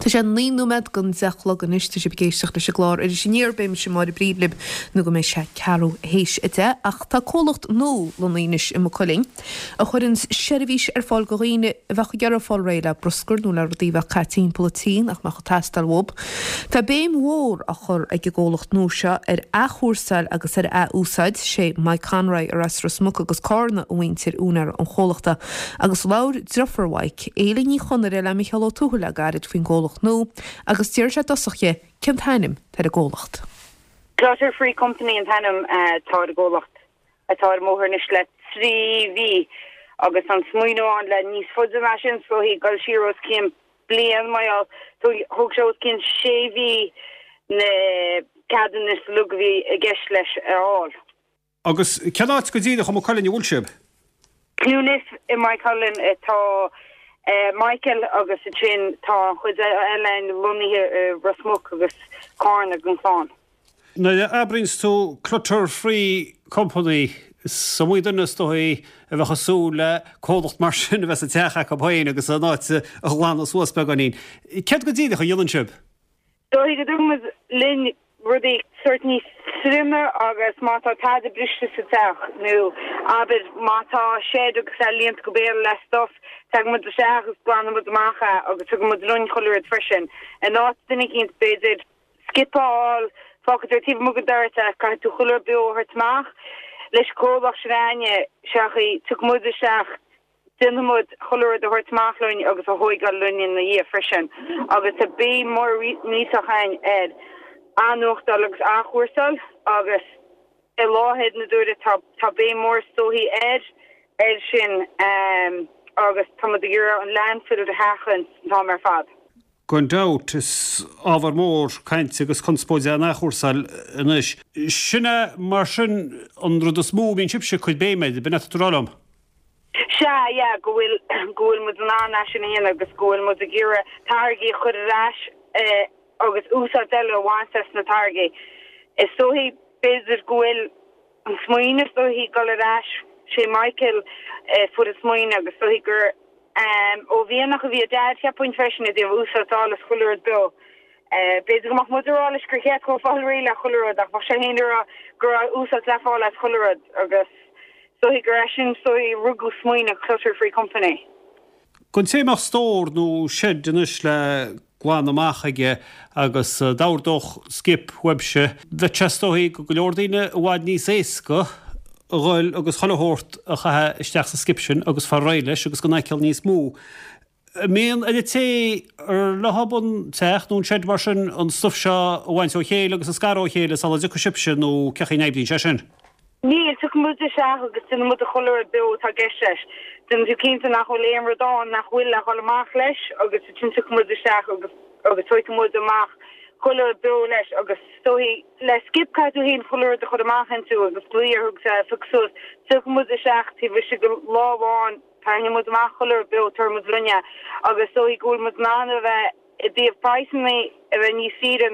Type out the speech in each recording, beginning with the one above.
Tá sé 9 nóiméad don 10 a chlog anois, tá sibh ag éisteacht leis an gclár Iris Aniar, beidh mise Máire Bríd libh nó go mbeidh sé ceathrú théis 10. Ach tá comhlacht nua lonnaithe anois i Maigh Cuilinn a chuireanns seirbhís ar fáil do dhaoine a bheadh ag iarraidh fáil réidh le bruscar nó le rudaí a bheadh caite timpeall an tí nach mbeadh ag teastáil uathu. Tá béim mhór á chur ag an gcomhlacht nua seo ar athchúrsáil agus ar ath-úsáid. Sé Mike Conroy ar as Ros Muc agus Cárna a mhuintir úinéir an chomhlachta agus labhair driofúr Mhaidhc, Éile Ní Chonaire le Micheál Ó Tuathail le gairid faoin gcomhlacht nua agus d'iarr sé i dtosach dhi cén t-ainm atá ar an gcomhlacht. Clutter Free Company an t-ainm atá ar an gcomhlacht atá ar an mbóthar anois le 3 mhí agus an smaoineamh ann le níos faide ná sin is dóichí, dul siar os cionn bliain mar gheall thóg sé os cionn sé mhí na ceadanna is uilig a bhí i gceist leis a fháil. Agus cén áit go díreach i Maigh Cuilinn a bhfuil sibh? Clonliffe i Maigh Cuilinn atá Michael agus ansin tá an chuid eile lonnaithe i Ros Muc agus Cárna den chlann. Nuair a abraíonns tú Clutter Free Company, is iomaí duine is dóichí a bheadh ag súil le comhlacht mar sin a bheith sa teach acu féin agus an áit a ghlanadh suas beagáinín. Céard go díreach a dhéanann sibh? Dóichí go dtugann muid linn rudaí sórt níos troime agus má tá tada briste sa teach nó abair má tá shed agus é líonta go béal le stuff, tagann muid isteach agus glanann muid amach é agus tugann muid linn chuile rud freisin. In áit duine eicínt b'fhéidir skip a fháil, fágfaidh tú taobh amuigh den doras é, caithfidh tú chuile rud beo a thabhairt amach. Leis an gcomhlacht sin a'inne, seachaí, tiocfaidh muid isteach, déanfaidh muid chuile rud a thabhairt amach linn agus a thóigeáil linn ina dhiaidh freisin. Agus tá béim mór millteach a'inn ar athnuachtáil agus athchúrsáil agus i láthair na huaire tá tá béim mór is dóichí air air sin agus tá muid ag iarraidh an landfill a sheachaint an t-am ar fad. Gan dabht, is ábhar mór cainte agus conspóide an athchúrsáil anois. Sin é mar sin an rud is mó a mbíonn sibhse ag cur béime air, b'in é atá tú a rá liom? Sea, yeah, go bhfuil, go bhfuil muid in ann é sin a dhéanamh agus go bhfuil muid ag iarraidh táirgí a chur ar ais agus úsáid eile a bhaint as na táirgí. Is dóichí, b'fhéidir go bhfuil an smaoineamh is dóichí dul ar ais, sé Michael a fuair an smaoineamh agus is dóichí gur ó mhianach a bhí a Dhaid cheapfainn freisin i dtaobh úsáid a fháil as chuile rud beo. B'fhéidir go mbeadh muid ag rá leis gur cheart dhó fáil réidh le chuile rud ach bheadh sé féin ag rá go raibh úsáid le fáil as chuile rud agus is dóichí gur as sin is dóichí a rugadh smaoineamh Clutter Free Company. Don té a mbeadh stór nó seid anois le glanadh amach aige agus d'ordódh skip uaibhse, bheadh sé is dóichí do go leor daoine i bhfad níos éasca a dhul agus chuile shórt a chaitheamh isteach sa skip sin agus fáil réidh leis agus gan fhaichill níos mó. An mbíonn ar an té ar leo an teach nó an seid mar sin an stuif seo a bhaint ó chéile agus a scaradh ó chéile sula dtiocfaidh sibhse nó cén chaoi a n-oibríonn sé sin? Níl, tiocfaidh muid isteach agus déanfaidh muid chuile rud beo atá i gceist leis. Déanfaidh tú cinnte nach bhfuil aon rud ann nach bhfuil le dhul amach leis agus ansin tiocfaidh muid isteach agus agus tógfaidh muid amach chuile rud beo leis agus is dóichí le skip caithfidh tú féin chuile rud a chur amach inti agus glaoch orthu agus é a phiocadh suas. Tiocfaidh muid isteach taobh istigh de lá amháin, tarraingeoidh muid amach chuile rud beo, tabharfaidh muid linn é agus is dóichí go bhfuil muid in ann a bheith i dtaobh praghsanna a bheith níos saoire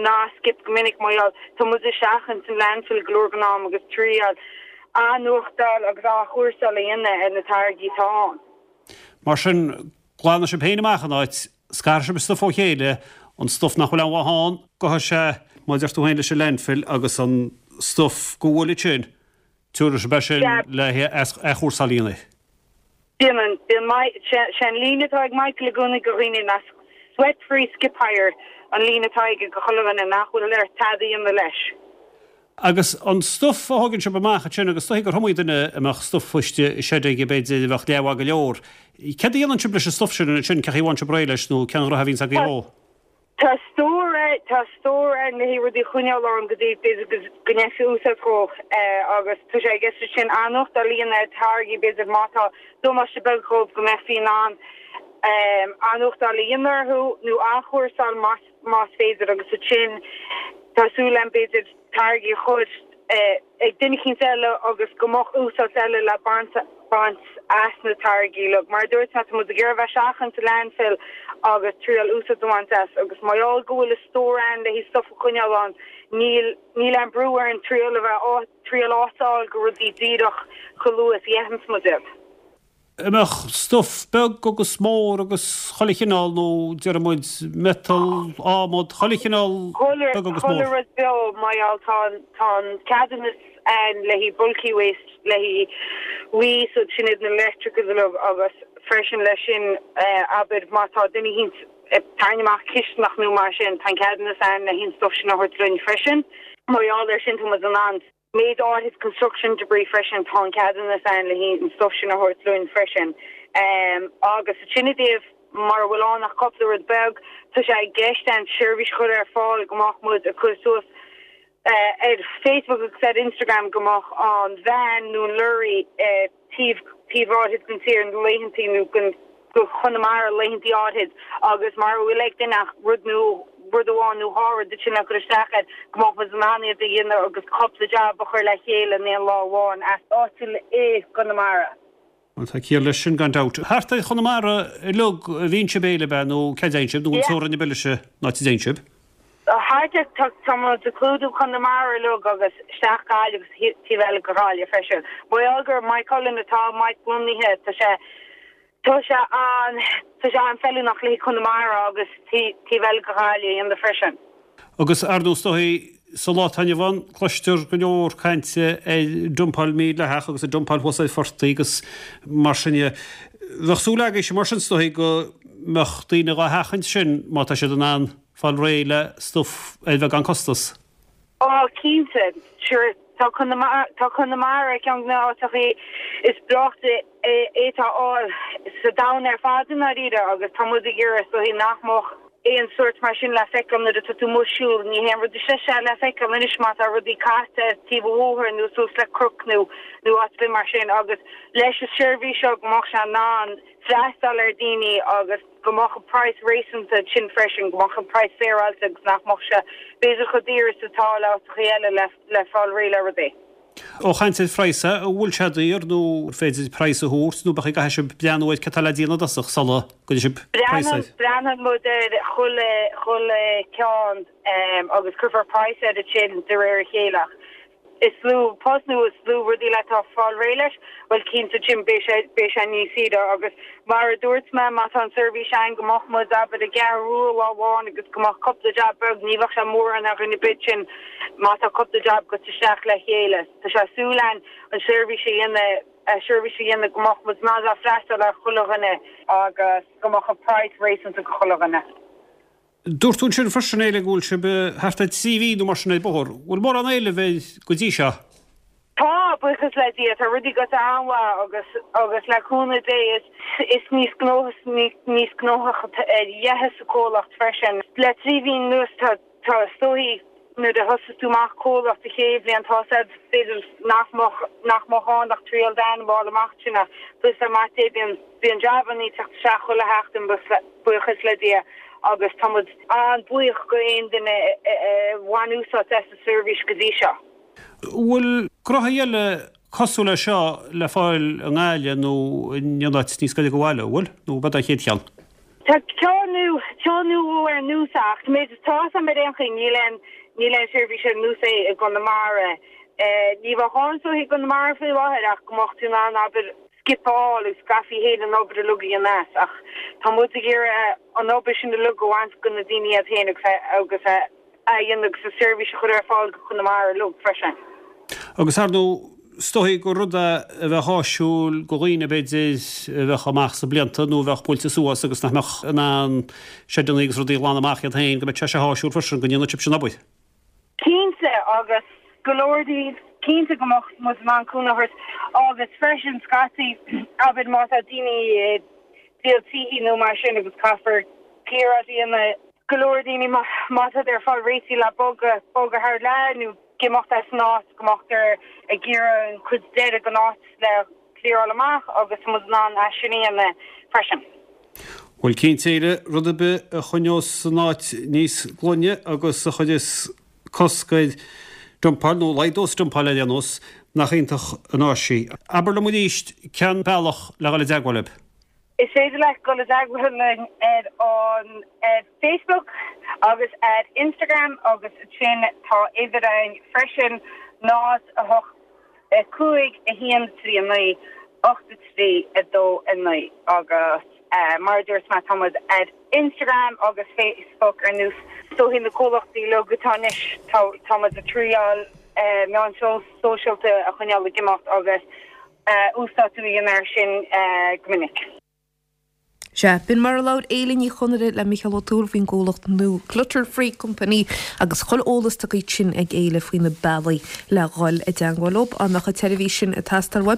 ná skip go minic mar gheall tá muid ag seachaint an landfill go leor den am agus triail athnuachtáil agus athchúrsáil a dhéanamh ar na táirgí atá ann. Mar sin, glanfaidh sibh féin amach an áit, scarfaidh sibh an stuif ó chéile, an stuif nach bhfuil aon mhaith ann, gabhfaidh sé, mar a deir tú féin, leis an landfill agus an stuif go bhfuil ansin, Tabharfaidh sibh é sin le athchúrsáil a dhéanamh. Déanann. Bíonn sé an líne atá ag Michael i gcónaí do dhaoine ná sweat free skip hire an líne atá aige do chuile dhuine nach bhfuil air tada a dhéanamh leis. Agus an stuif a thógann sibh amach ansin agus is dóichí gur iomaí duine a mbeadh stuif istigh i seid aige b'fhéidir a bheadh leathmhaith go leor. Céard a dhéanann sibh leis an stuif sin ansin, cén chaoi a bhfaigheann sibh réidh leis nó cén ghnoithe a bhíonns agaibh dhó? Tá stór ann, tá stór ann le haghaidh rudaí a choinneáil ann go dtí b'fhéidir go go ndéanfaí úsáid dhó agus tá sé i gceist ansin athnuachtáil a dhéanamh ar táirgí b'fhéidir má tá damáiste beag dhóibh go mbeifí in ann athnuachtáil a dhéanamh orthu nó athchúrsáil más más féidir agus ansin tá súil agam b'fhéidir táirgí a chur ag duine eicínt eile agus go mbeadh úsáid eile le baint baint as na táirgí uilig. Mar a dúirt mé, tá muid ag iarraidh a bheith seachaint an landfill agus triail úsáid a bhaint as agus mar gheall go bhfuil an stór ann le haghaidh stuff a choinneáil ann, níl níl aon brú orainn triail a bheith triail áit a fháil go rudaí díreach chomh luath is a dhéanfas muid iad. An mbeadh stuif beag agus mór agus chuile chineál nó déarfaidh muid miotal, adhmad, chuile chineál beag agus mór? Chuile rud beo mar gheall tá an tá an ceadúnas ann le haghaidh bulky waste le haghaidh waste sin iad na electricals uilig agus freisin leis sin abair má tá duine eicínt ag tarraingt amach cisteanach nó mar sin tá an ceadúnas ann le haghaidh an stuif sin a thabhairt linn freisin. Mar gheall ar sin tá muid in ann Méid áithrid construction debris freisin, tá an ceadúnas ann le haghaidh an stuif sin a thabhairt linn freisin. Agus sin i dtaobh mara bhfuil ann ach cúpla rud beag, tá sé i gceist ann seirbhís a chur ar fáil go mbeadh muid ag cur suas ar Facebook agus ar Instagram go mbeadh an veain nó an lorry taobh taobh áithrid den tír na laethantaí nó den go Chonamara laethantaí áithrid agus mara bhfuil ag duine ach rud nó rud amháin nó dhá rud ansin le cur isteach air go mbeadh muid in ann iad a dhéanamh agus cúpla jab a chur le chéile in aon lá amháin as áitiúil i gConamara. Bhuel tá ciall leis sin gan dabht. Thart ar Chonamara uilig a bhíonn sibh Éile ab ea nó cá dtéann sibh nó an teorainn ab eile an áit a dtéann sibh? Thart ar, tá, tá muid ag clúdú Conamara uilig agus isteach Gaillimh agus taobh eile de Ghaillimh freisin. Mar gheall gur Maigh Cuilinn atá Mike lonnaithe, tá sé, tá sé an, tá sé an-fheiliúnach le haghaidh Conamara agus taobh eile de Ghaillimh a dhéanamh freisin. Agus ar ndóigh is dóigh sa lá atá inniu ann cloistear go leor cainte ar dumpáil mídhleathach agus ar dumpáil thuas ar phortaigh agus mar sin de. Bheadh súil agaibhse mar sin is dóigh go mbeadh daoine dhá sheachaint sin má tá siad in ann fáil réidh le stuif ar bheagán costas. Á, cinnte. Sure, tá Conamara, tá Conamara ar cheann de na háiteachaí is breáichte a fhéadfá a fháil sa domhan ar fad i ndáiríre agus tá muid ag iarraidh is dóichí nach mbeadh aon sórt mar sin le feiceáil nuair atá tú amuigh ag siúl. Ní haon rud is deise le feiceáil anois má tá rudaí caite ar taobh an bhóthair nó suas le cnoc nó nó áit ar bith mar sin agus leis an seirbhís seo go mbeadh sé in ann freastal ar daoine agus go mbeadh an praghas réasúnta ansin freisin, go mbeadh an praghas féaráilte agus nach mbeadh sé b'fhéidir chomh daor is atá le áiteachaí eile le le fáil réidh le rudaí. Ó chaint ar phraghas, an bhfuil sé daor nó an féidir praghas a thabhairt nó b'fhéidir go gcaithfidh sibh breathnú ar cad tá le déanamh i dtosach sula gcuirfidh sibh praghas air? Breathnaíonn muid ar chuile chuile ceann agus cuirfear praghas air ansin de réir a chéile ach is lú post nó is lú rudaí le tá fáil réidh leis, bhuel cinnte Jim beidh sé beidh sé níos saoire agus mar a dúirt mé má tá an seirbhís ann go mbeadh muid abair i gCeathrú Rua lá amháin agus go mbeadh cúpla jab beag ní bheadh sé mórán ar dhuine ar bith sin má tá cúpla jab goite isteach le chéile. Tá sé súil ann an seirbhís a dhéanamh seirbhís a dhéanamh go mbeadh muid in ann freastal ar chuile dhuine agus go mbeadh an praghas réasúnta go chuile dhuine. Dúirt tú ansin freisin, Éile, go bhfuil sibh thart ar 3 mhí nó mar sin ar bóthar. Bhfuil mórán éilimh air go dtí seo? Tá, buíochas le Dia. Tá rudaí goite an-mhaith agus agus le cúnamh Dé is is níos gnóthaí níos gnóthach a dhéanfas an comhlacht freisin. Le 3 mhí anuas tá tá is dóichí nuair a thosas tú amach comhlacht an chéad bhliain tá a fhios a'd b'fhéidir nach mbeadh nach mbeadh ann ach triail d'ainm a fháil amach sin ach buíochas le Maith Dé bíonn bíonn jabannaí ag teacht isteach chuile sheachtain buíochas le Dia agus tá muid an-bhuíoch go aon duine a bhain úsáid as an seirbhís go dtí seo. Bhfuil gnóthaí eile cosúil le seo le fáil i nGaillimh nó in aon áit níos gaire do bhaile, an bhfuil? Nó ab é do chéad cheann? Tá ceann nó ceann nó dhó ar nós é ach méid is tá 'fhios a'm ar aon chaoi níl aon níl aon seirbhís ar nós é i gConamara. Ní bheadh ann is dóichí i gConamara faoi láthair ach go mbeadh tú in ann abair skip a fháil agus go gcaithfí féin an obair uilig a dhéanamh as ach tá muid ag iarraidh an obair sin uilig a bhaint go na daoine iad féin agus agus a dhéanamh agus an seirbhís a chur ar fáil go Conamara uilig freisin. Agus ar ndóigh, is dóichí gur rud é a bheadh áisiúil go dhaoine b'fhéidir a bheadh amach sna blianta nó a bheadh buailte suas agus nach mbeadh in ann seideanna agus rudaí a ghlanadh amach iad féin, go mbeadh sé seo áisiúil freisin, go ndéanfadh sibhse an obair. Cinnte, agus go leor daoibh, cinnte go mbeadh muid in ann cúnamh a thabhairt agus freisin scaití, abair má tá daoine ag díol tithe nó mar sin agus caithfear clear out a dhéanamh, go leor daoine má tá ar fáil réitithe le bogadh, bogadh thar lear nó ag imeacht as an áit, go mbeadh ag iarraidh an chuid deiridh den áit le clearáil amach agus tá muid in ann é sin a dhéanamh freisin. Bhuel cinnte Éile, rud ar bith a choinneos an áit níos glaine agus a chuireas cosc ar dumpáil, nó laghdós dumpáil ar aon nós, nach iontach an áis í. Abair liom arís cén bealach le dhul i dteagmháil libh? Is féidir leat dul i dteagmháil linn ar an ar Facebook agus ar Instagram agus ansin tá uimhir againn freisin, 0 8 5 1 3 9. 8 3 2 9 agus mar a dúirt mé tá muid ar Instagram agus Facebook ar nós is dóichí na comhlachtaí uilig atá anois tá tá muid ag triáil meáin sóisialta a choinneáil ag imeacht agus uasdátú a dhéanamh air sin go minic. Sea, b'in mar a labhair Éile Ní Chonaire le Micheál Ó Tuathail faoin gcomhlacht nua Clutter Free Company agus chuile eolas tugtha ansin ag Éile faoi na bealaí le dhul i dteangmháil leo. Dá mbeadh an tseirbhís sin ag teastáil uaibh.